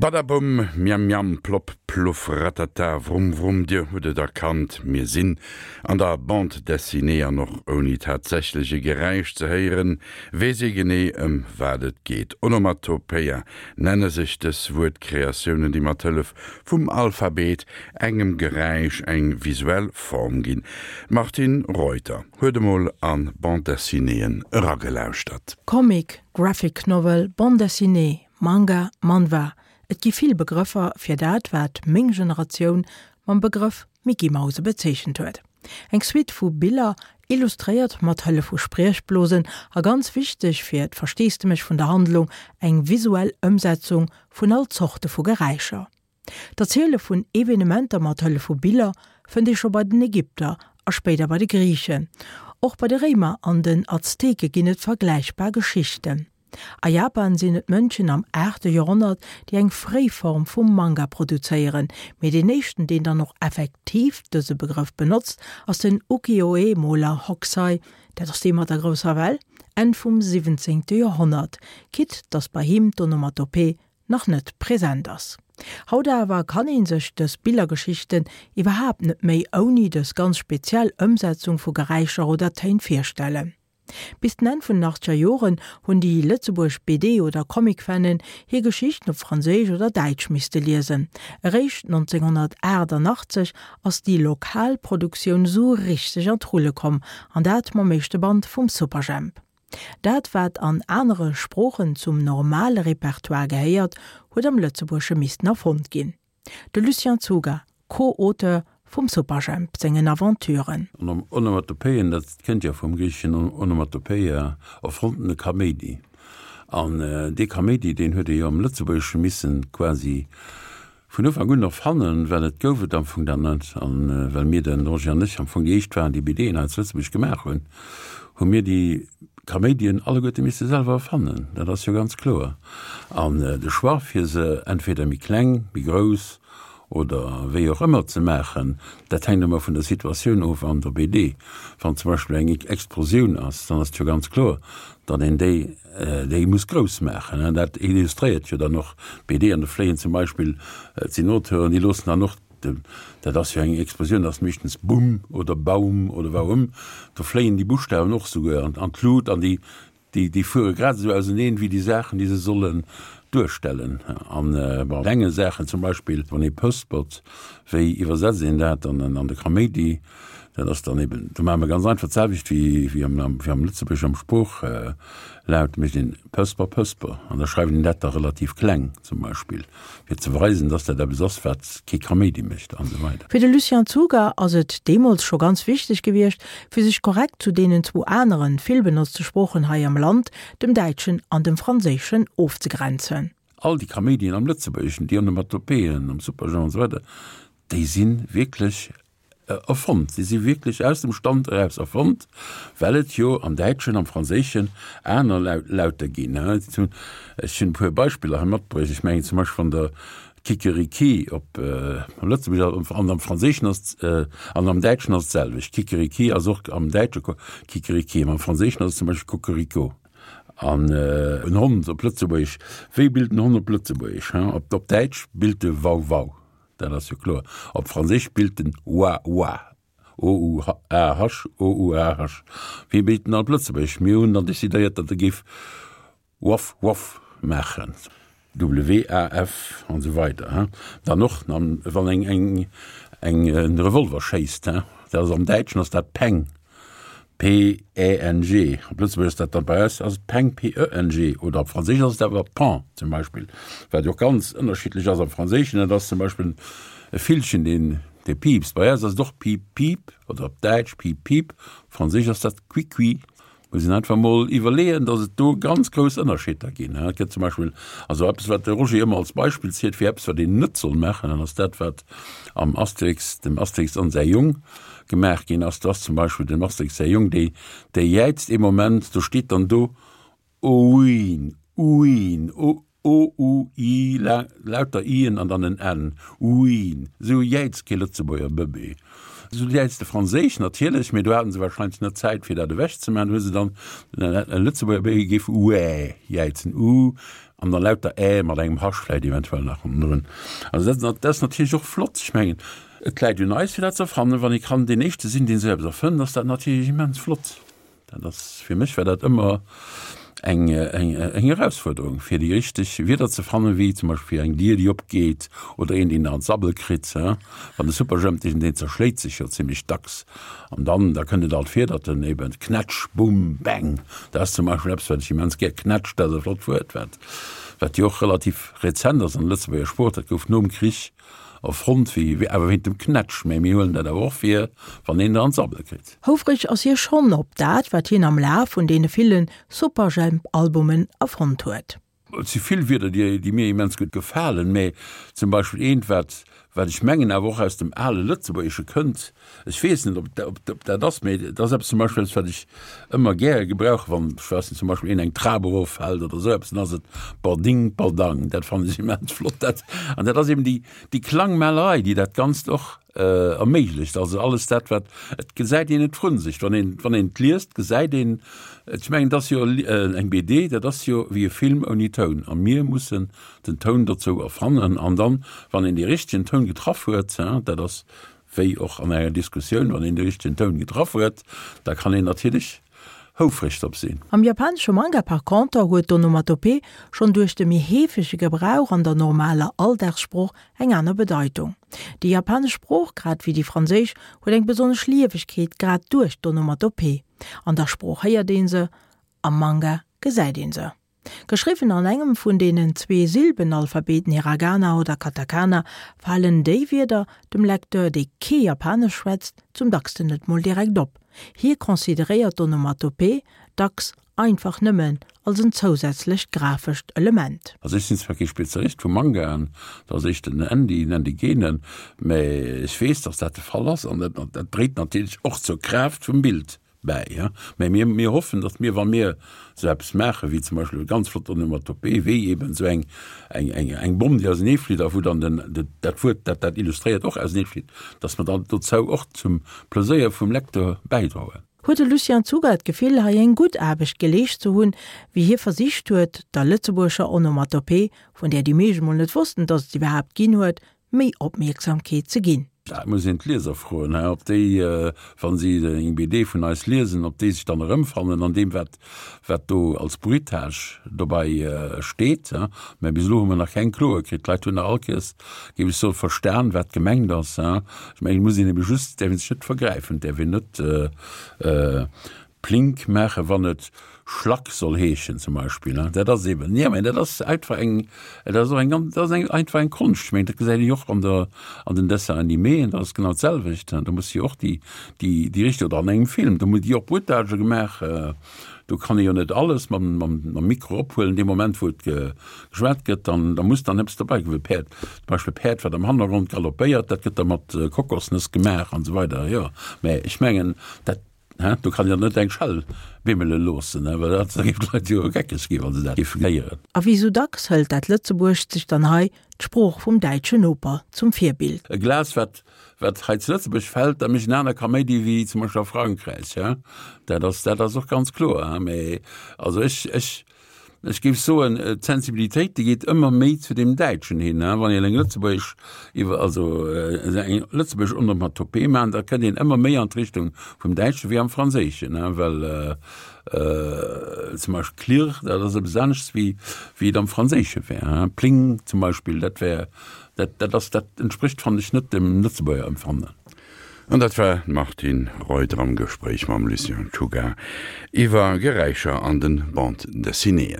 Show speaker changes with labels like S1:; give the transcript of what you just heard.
S1: Badabumm, Miam miam, plopp pluff, ratata, vrumm vrumm, dir hutt et erkannt, mir sinn an der Bande dessinée an och ouni tatsächlech e Geräisch ze héieren, weess ee genee ëm wat et geet. Onomatopoeia nenne sech dës Wuertkreatiounen, déi mat Hëllef vum Alphabet engem Geräisch eng visuell Form ginn. D'Martine Reuter huet emol an Bande dessinéeën eragelauschtert.
S2: Comic, Graphic Novel, Bande dessinée, Manga, Manhwa, et gi vill Begrëffer fir dat, wat meng Generatioun mam Begrëff Mickey-Mause bezeechent huet. Eng Suite vu Biller, illustréiert mat Hëllef vu Spriechblosen a ganz wichteg fir d'Versteesdemech vun der Handlung, eng visuell Ëmsetzung vun all Zorte vu Geräischer. D'Erziele vun Evenementer mat Hëllef vu Biller fënnt ee scho bei den Ägypter a spéider bei de Griichen. Och bei de Réimer an den Azteke ginn et vergläichbar Geschichten. A Japan sinn et d'Mönchen am aachte Joerhonnert, déi eng fréi Form vum Manga produzéieren, mee deen éischten, deen dann och effektiv dëse Begrëff benotzt, ass den Ukiyo-e-Moler Hokusai, dat ass dee mat der grousser Well, Enn vum siwwenzéngte Joerhonnert, quitte datt bei him d'Onomatopee nach net present ass. Haut awer kann een sech dës Billergeschichten iwwerhaapt net méi ouni dës ganz speziell Ëmsetzung vu Geräischer oder Téin virstellen. Bis den Enn vun den achtzeger Joren hunn déi lëtzebuergesch BD oder Comic-Fannen hir Geschichten op Franséisch oder Däitsch misste liesen. Eréischt 1988 ass déi lokal Produktioun esou richteg an d'Rulle komm, an dat mam éischte Band vum Superjhemp. Dat wat an anere Sproochen zum normale Repertoire gehéiert, huet am Lëtzebuergesche missten erfonnt ginn. De Lucien Czuga, Co-Auteur vum Superjhemp sengen Aventuren.
S3: Onomatopoeien, dat kënnt jo vum griicheschen onomatopoeia, erfonntene Kaméidi. An dee Kaméidi, deen huet ee jo am Lëtzebuergesche missen quasi Vun Ufank un erfannen, well et gouf et am Fong dat net. A well mir, de Roger an ech, am Fong déi éischt waren, déi BDen hei zu Lëtzebuerg gemaach hunn, hu mir déi Kaméidien alleguerte misse selwer erfannen. Dat ass jo ganz kloer. An de Choix, fir se entweder méi kleng, méi grouss oder wéi och ëmmer ze maachen, dat hänkt ëmmer vun der Situatioun of an der BD. Wann zum Beispill eng Explosioun ass, dann ass et jo ganz kloer, datt een déi Déi muss grouss maachen. Dat illustréiert jo dann och d'BD. An do fléien zum Beispill, et sinn Auteuren, déi loossen dann och, dat ass jo eng Explosioun, dat ass meeschtens Bumm oder Baum oder Waum, do fléien déi Buschtawen och souguer an d'Lut an déi, déi fuere grad esou auseneen wéi déi Saachen, déi se sollen duerstellen. An bei klenge Saachen, zum Beispill wann ee pëspert, wéi iwwersetzt een dat dann an de Kaméidi? Dat ass dann eben, do maache mer ganz einfach d'selwecht wéi wéi am wéi am Lëtzebuergesch am Sprooch-Laut, mécht een Pësper, Pësper an da schreift een dat da relativ kleng zum Beispill, fir ze weisen, dass dat eppes ass, wat kee Kaméidi mécht an esou weider.
S2: Fir de Lucien Czuga ass et deemools scho ganz wichteg gewiescht, fir sech korrekt zu deenen zwou aneren, vill benotzte Sproochen hei am Land, dem Däitschen an dem Franséischen, ofzegrenzen.
S3: All déi Kaméidien am Lëtzebuergeschen, déi Onomatopéeën am Superjhemp an esou weider, déi si wierklech Erfonnt. Si si wierklech aus dem Stand eraus erfonnt, well et jo am Däitschen, am Franséischen aner Lauter ginn. Ech hunn e puer Beispiller hei matbruecht. Ech mengen zum Beispill, wann Der Kikeriki op Lëtzebuergesch an am Franséischen ass an am Däitschen ass et d'selwecht. Kikeriki ass och am Däitsche Kikeriki, mä am Franséischen ass et zum Beispill Cocorico. An en Hond op Lëtzebuergesch, wéi billt en Hond op Lëtzebuergesch? Op Däitsch billt e Wau-Wau. Dat ass jo kloer. Op Franséisch billt en oua oua, o-u-a-h, o-u-a-h. Wéi billt en op Lëtzebuergesch? Mir hunn dann decidéiert, datt e géif waf waf maachen, w-a-f an esou weider. Dann och, wann eng eng eng e Revolver schéisst, dat ass am Däitschen ass dat Peng. P-E-N-G, op Lëtzebuergesch ass dat dann, bei eis ass et Peng, P-E-N-G, oder op Franséisch ass et awer Pan zum Beispill, wat jo och ganz ënnerschiddlech ass am Franséischen, dat ass zum Beispill e Villchen, deen, dee piipst, bei eis ass et och piip, piip oder op Däitsch piep, piep, op Franséisch ass dat qui, qui. Muss een einfach mol iwwerleeën, datt et do ganz grouss Ënnerscheeder ginn. Et gëtt zum Beispill also eppes, wat de Roger ëmmer als Beispill zielt fir eppes, wat een net soll maachen, dat ass dat, wat am Asterix, dem Asterix an säi Jong, gemaach ginn ass. Do ass zum Beispill dem Asterix säi Jong, dee, dee jäizt ee Moment, do steet dann do, Ouin, ouin, o, O-u-i, lauter i-en an dann en n, ouin. Esou jäizt kee Lëtzebuerger Bëbee. Esou jäizt de Franséisch natierlech, mee do haten se wahrscheinlech net Zäit fir dat ewech ze maachen, do hu se dann e Lëtzebuerger Béi géif uäh jäizen, u an dann lauter ä mat engem Hasch vläicht eventuell nach hannendrun. Also dat dat ass natierlech och flott. Ech mengen, et läit un eis fir dat ze erfannen. Wann ee kann deen Éischte sinn, deen esou eppes erfënnt, ass dat natierlech immens flott. Dat ass, fir mech war dat ëmmer eng, eng, eng Erausfuerderung, fir déi richteg Wierder ze fannen, wéi zum Beispill fir eng Dier, déi opgeet, oder een, deen an d'Sabbel kritt. Wann de Superjhemp deen, deen zerschléit sech jo zimmlech dacks. An dann, da kënnt et alt vir, datt en eben Knätsch, Bumm, Bäng, dat ass zum Beispill eppes, wat ech immens gär, Knätsch, dat ass e flott Wuert, wat, wat jo och relativ rezent ass an der Lëtzebuerger Sprooch, dat gouf nom Krich erfonnt, wéi, awer wéint dem Knätsch, mä mir huelen dat awer och vir, wann een der an d'Sabbel kritt.
S2: Houfreg ass hie schonn op dat, wat hien am Laf vun deene ville Superjhemp-Albumen erfonnt huet.
S3: Et si vill Wierder, déi mir immens gutt gefalen, mä zum Beispill eent, wat, wat ech mengen awer och aus dem ale Lëtzebuergesche kënnt, ech weess net, ob, ob dat ass, mä et ass eppes zum Beispill eppes, wat ech ëmmer gäre gebrauche wann, ech weess net, zum Beispill een eng Trap eroffält oder esou eppes, dann ass et Bording, Bordang. Dat fannen ech immens flott. Dat, an dat ass eben déi, déi Klangmalerei, déi dat Ganzt och erméiglecht. Also alles dat wat, et gesäit een et vrun sech, wann een, wann een et liest, gesäit een, ech mengen et ass jo eng BD, dat ass jo wéi e Film ouni Toun a mir mussen den Toun dozou erfannen an dann, wann een dee richtegen Toun getraff huet, dat ass wéi och an enger Diskussioun, wann een de richtegen Toun getraff huet, da kann een natierlech houfreg drop sinn.
S2: Am japanesche Manga par conter huet d'Onomatopee schonn duerch de méi heefege Gebrauch an der normaler Alldagssprooch eng aner Bedeitung. Déi japanesch Sprooch, grad wéi déi franséisch, huet eng besonnesch Liewegkeet grad duerch d'Onomatopee. An der Sprooch héiert ee se, am Manga gesäit ee se. Geschriwwen an engem vun deenen zwee Silbenalphabeten Hiragana oder Katakana, falen déi Wierder dem Lecteur, dee kee Japanesch schwätzt, zum dacksten net mol direkt op. Hie consideréiert d'Onomatopee dacks einfach nëmmen als en zousätzlecht grafescht Element.
S3: Also ech sinn zwar kee Spezialist vu Mangaen, dat ass éischter den Andy, den Andy Genen, mä ech weess, datt dat de Fall ass an dat dréit natierlech och zur Kraaft vum Bild bäi. Mä mir, mir hoffen, datt mir, wa mir esou eppes maachen, wéi zum Beispill e ganz flott Onomatopée, wéi eben esou eng, eng, eng, eng Bomm, déi auseneeflitt a wou dann den, dat Wuert, dat dat illustréiert, och auseneeflitt, datt mer dann dozou och zum Pleséier vum Lecteur bäidroen.
S2: Huet de Lucien Czuga d'Gefill, hei eng gutt Aarbecht geleescht ze hunn, wéi hie versicht huet, der lëtzebuergescher Onomatopee, vun där déi meescht mol net wossten, datt et se iwwerhaapt ginn huet, méi Opmierksamkeet ze ginn?
S3: Dat muss een d'Lieser froen, ob déi, wa si eng BD vun eis liesen, ob déi sech dann erëmfannen an deem, wat, wat do als Bruitage dobei steet. Mä bis elo hu mer nach keng Kloe kritt. D'Leit hunn nach all Kéiers, géif ech soen, verstan, wat gemengt ass. Ech mengen, et muss een ebe just, et däerf ee sech net vergräifen, et däerf een net Plink maachen, wann et Schlack soll heeschen zum Beispill. Dat ass eben, jo, mä dat ass einfach eng, dat ass och eng ganz, dat ass eng einfach eng Konscht. Ech mengen, dat gesäit een jo och an der, an den Dessins animéen, dat ass genau d'selwecht. Do muss jo och déi, déi, déi richteg, oder an engem Film, do gi och Bruitagë gemaach, do kann ee jo net alles mam, mam, mam Mikro ophuelen dee Moment, wou et geschwat gëtt, dann, da muss dann eppes dobäi kommen, Päerd, zum Beispill e Päerd, wat am Hannergrond galoppéiert, dat gëtt da mat Kokosnëss gemaach an esou weider, jo. Mä ech mengen, dat, hä, do kann een dann net eng Schell bimmele loossen, hä, well dat, da géif d'Leit jo geckeg ginn, wa se dat géifen héieren.
S2: A wéi sou dacks hëlt dat Lëtzebuergescht sech dann hei d'Sprooch vum däitschen Noper zum Virbild.
S3: E Glas, wat, wat hei zu Lëtzebuerg fält, da mécht en aner Kaméidi wéi zum Beispill a Frankräich, hä. Dat ass, dat ass och ganz kloer, hä. Mä also ech, ech, Ech géif soen, d'Sensibilitéit, déi geet ëmmer méi zu deem Däitschen hin. Wann een eng lëtzebuergesch iwwer, also eng lëtzebuergesch Onomatopée maachen, da kënnt een ëmmer méi an d'Richtung vum Däitschen wéi am Franséischen, well zum Beispill klirr, dat ass eppes aneschts wéi wéi et am Franséische wär. Pling zum Beispill, dat wär, dat dat ass, dat entsprécht, fannen ech, net dem Lëtzebuerger Empfannen.
S1: An dat war d'Martine Reuter am Gespréich mam Lucien Czuga iwwer Geräischer an den Bande Dessinéeën.